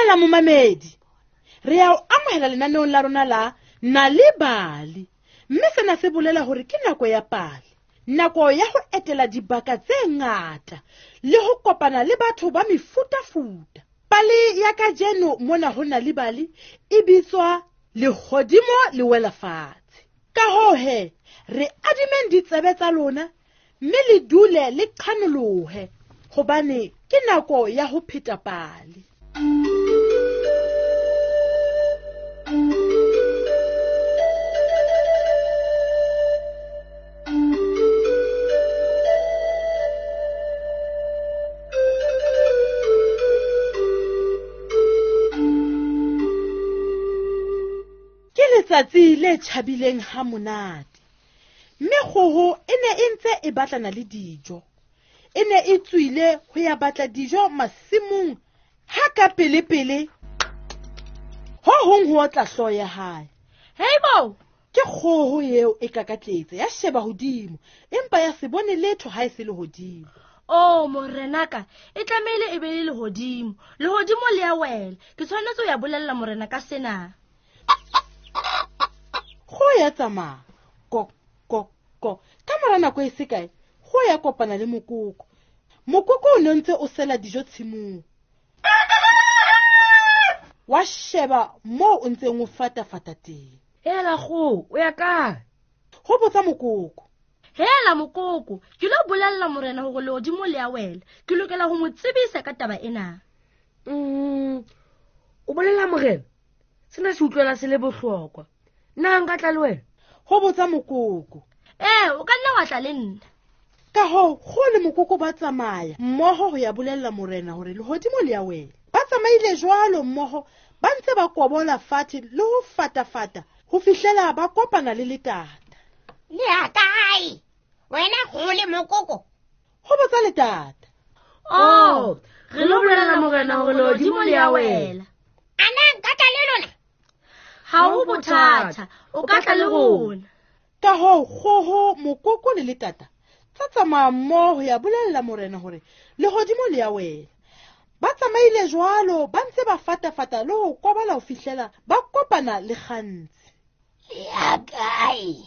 Dumela momamedi, re ya o amohela lenaneong la rona la Nal'ibali, mme sena se bolela hore ke nako ya pale, nako ya ho etela dibaka tse ngata le ho kopana le batho ba mefutafuta. Pale ya kajeno mona ho Nal'ibali e bitswa Lehodimo le wela fatshe. Ka hoo he, re adimeng ditsebe tsa lona mme le dule le qhanolohe, hobane ke nako ya ho pheta pale. Ke letsatsi le tjhabileng ha monate, mme kgoho e ne e ntse e batlana le dijo. E ne e tswile ho ya batla dijo masimong ha ka pele-pele ho hong ho otla hlooho ya hae. Hei bo! Ke kgoho eo e kakatletse, ya sheba hodimo, empa ya se bone letho ha e se lehodimo. Oh, morenaka, e tlamehile e be le lehodimo. Lehodimo le a wela. Ke tshwanetse ho ya bolella morena ka sena. Kgoho ya tsamaya. Ko, ko, ko. Ka mora nako e se kae, kgoho ya kopana le mokoko. Mokoko o ne ntse o sela dijo tshimong. Wa sheba moo o ntseng o fatafata teng. Hela kgoho, o ya kae? Ho botsa mokoko. Hela mokoko, ke lo bolella morena hore lehodimo le a wela. Ke lokela ho mo tsebisa ka taba ena. O bolella morena? Sena se utlwela se le bohlokwa. Nna nka tla le wena? Ho botsa mokoko. Ee, o ka nna wa tla le nna. Ka hoo, kgoho le mokoko ba tsamaya mmoho ho ya bolella morena hore lehodimo le a wela. Ba tsamaile jwalo mmoho, ba ntse ba kobola fatshe le ho fatafata ho fihlela ba kopana le letata. Le ya kae? Wena kgoho le mokoko? Ho botsa letata. Oh, re lo bolella morena hore lehodimo le a wela. A na nka tla le lona? Ha ho bothata, o ka tla le rona. Ka hoo, kgoho, mokoko le letata tsa tsamaya mmoho ho ya bolella morena hore lehodimo le a wela. Ba tsamaile jwalo, ba ntse ba fatafata le ho kobola ho fihlela ba kopana le kgantsi. Le ya kae?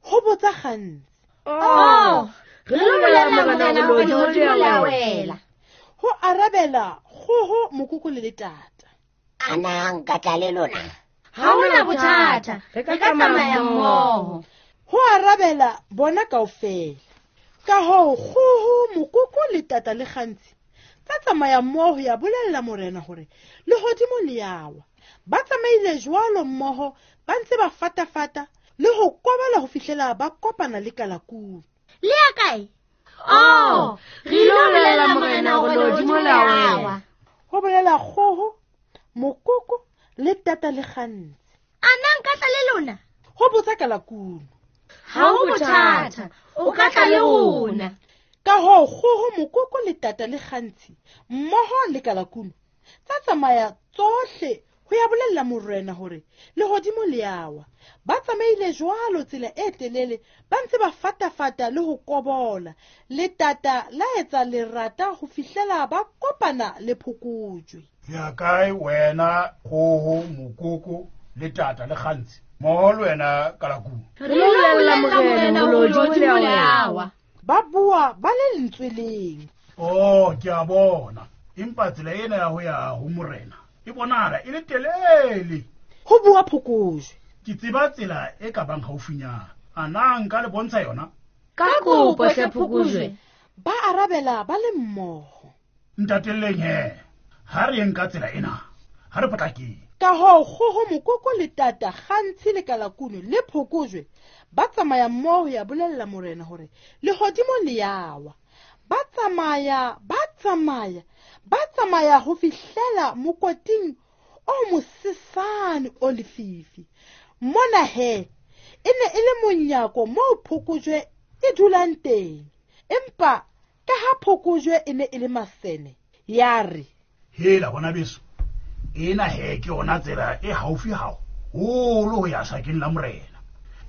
Ho botsa kgantsi. Oh, re lo bolella morena hore lehodimo le a wela. Ho arabela kgoho, mokoko le letata. A na nka tla le lona? Ha hona bothata, re ka tsamaya mmoho. Ho arabela bona kaofela. Ka hoo, kgoho, mokoko le tata le kgantsi tsa tsamaya mmoho ho ya bolella morena hore lehodimo le a wa. Ba tsamaile jwalo mmoho, ba ntse ba fatafata le ho kobola ho fihlela ba kopana le kalakunu. Le ya kae? Oh, re lo bolella morena hore lehodimo le a wa. Ho bolela kgoho, mokoko le tata le kgantsi. A na nka tla le lona? Ho botsa kalakunu. Ha ho bothata, o ka tla le rona. Ka hoo, kgoho, mokoko le tata le kgantsi mmoho le kalakunu tsa tsamaya tsohle ho ya bolella morena hore lehodimo le a wa. Ba tsamaile jwalo tsela e telele, ba ntse ba fatafata le ho kobola. Letata la etsa lerata ho fihlela ba kopana le phokojwe. Ya kae wena kgoho, mokoko le tata le kgantsi? Mmoho le wena kalakunu. Re lo bolella morena hore lehodimo le a wa. Ba bua ba le lentswe leng. Oh, ke a bona. Empa tsela ena ya ho ya ho morena e bonahala e le telele. Ho bua phokojwe. Ke tseba tsela e ka bang haufinyana. A na nka le bontsha yona? Ka kopo hle phokojwe. Ba arabela ba le mmoho. Ntatelleng he, ha re yeng ka tsela ena, ha re potlakeng. Ka hoo, kgoho, mokoko le tata, kgantshi le kalakunu le phokojwe ba tsamaya mmoho ho ya bolella morena hore lehodimo le a wa. Ba tsamaya, ba tsamaya, ba tsamaya ho fihlela mokoting o mosesane o lefifi. Mona he, e ne e le monyako moo phokojwe e dulang teng. Empa ka ha phokojwe e ne e le masene, ya re, Hela bona beso, ena he ke yona tsela e haufi haholo ho ya sakeng la morena.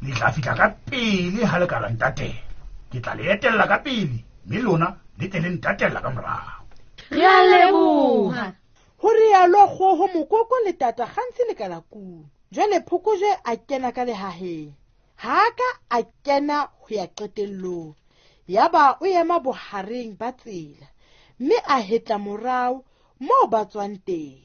Le tla fihla ka pele ha le ka la ntatela. Ke tla le etella ka pele, mme lona le tle le ntatella ka morao. Re a leboha. Ho rialo kgoho, mokoko le tata kgantshi le kalakunu. Jwale phokojwe a kena ka lehaheng. Ha a ka a kena ho ya qetellong. Yaba o ema bohareng ba tsela mme a hetla morao moo ba tswang teng.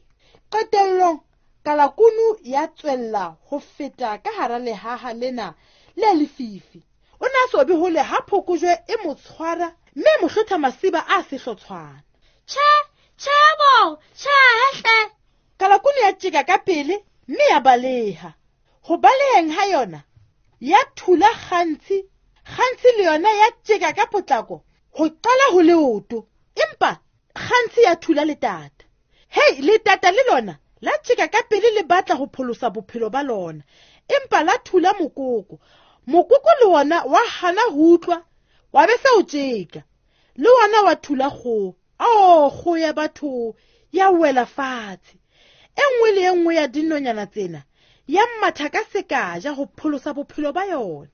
Qetellong kalakunu ya tswella ho feta ka hara lehaha lena le lefifi. O ne a so be hole ha phokojwe e mo tshwara mme e mo hlotha masiba a sehlotshwana. Tjhe, tjhe bo, tjhe hle. Kalakunu ya tjeka ka pele mme ya baleha. Ho baleheng ha yona ya thula kgantshi, kgantshi le yona ya tjeka ka potlako ho qala ho leoto, empa kgantshi ya thula letata. Hei, letata le lona la tjeka ka pele le batla ho pholosa bophelo ba lona, empa la thula mokoko. Mokoko le wona wa hana ho utlwa, wa be se o tjeka. Le wona wa thula kgoho. Ao, kgoho ya batho ya wela fatshe. E nngwe le e nngwe ya dinonyana tsena ya matha ka sekaja ho pholosa bophelo ba yona.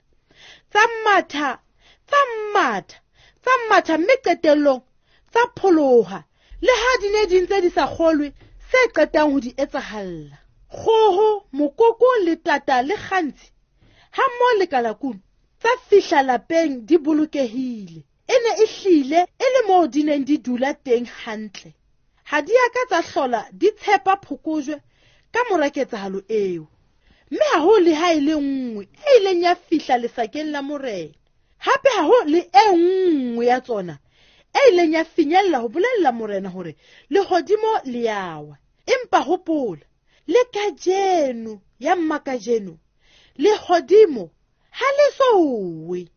Tsa matha, tsa matha, tsa matha mme qetellong tsa pholoha. Le ha di ne di ntse di sa kgolwe se qetang ho di etsahalla. Kgoho, mokoko le tata le kgantshi ha mmoho le kalakunu tsa fihla lapeng di bolokehile. E ne e hlile e le moo di neng di dula teng hantle. Ha di a ka tsa hlola di tshepa phokojwe ka mora ketsahalo eo. Mme ha ho le ha e le nngwe e ileng ya fihla lesakeng la morena. Hape ha ho le e nngwe ya tsona e ileng ya finyella ho bolella morena hore lehodimo le ya wa. Empa hopola, le kajeno ya mmakajeno, lehodimo ha le so we.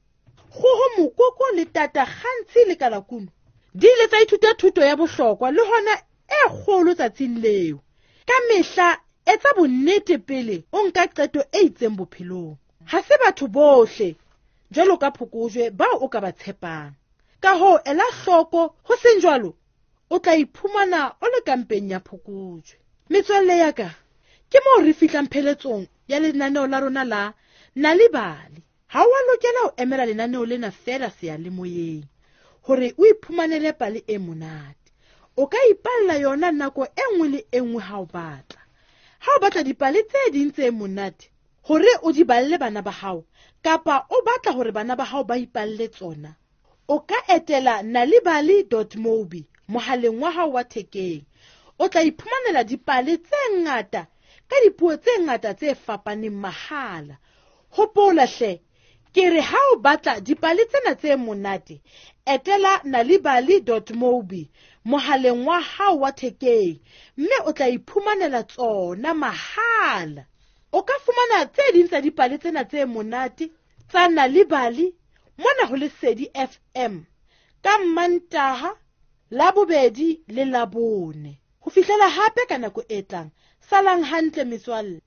Kgoho, mokoko le tata kgantshi le kalakunu di ile tsa ithuta thuto ya bohlokwa le hona e kgolo tsatsing leo. Ka mehla etsa bonnete pele o nka qeto e itseng bophelong. Ha se batho bohle jwalo ka phokojwe bao o ka ba tshepang. Ka hoo ela hloko, ho seng jwalo o tla iphumana o le kampeng ya phokojwe. Metswalle ya ka, ke moo re fihlang pheletsong ya lenaneo la rona la Nal'ibali. Ha o a lokela ho emela lenaneo lena feela seyalemoyeng hore o iphumanele pale e monate. O ka ipalla yona nako e nngwe le e nngwe ha o batla. Ha o batla dipale tse ding tse monate hore o di balle bana ba hao, kapa o batla hore bana ba hao ba ipalle tsona, o ka etela nalibali dot mobi mohaleng wa hao wa thekeng. O tla iphumanela dipale tse ngata ka dipuo tse ngata tse fapaneng mahala. Hopola hle, ke re ha o batla dipale tsena tse monate, etela nalibali dot mobi mohaleng wa hao wa thekeng mme o tla iphumanela tsona mahala. O ka fumana tse ding tsa dipale tsena tse monate tsa Nal'ibali mona ho Lesedi FM ka Mmantaha, Labobedi le Labone. Ho fihlela hape ka nako e tlang, salang hantle metswalle.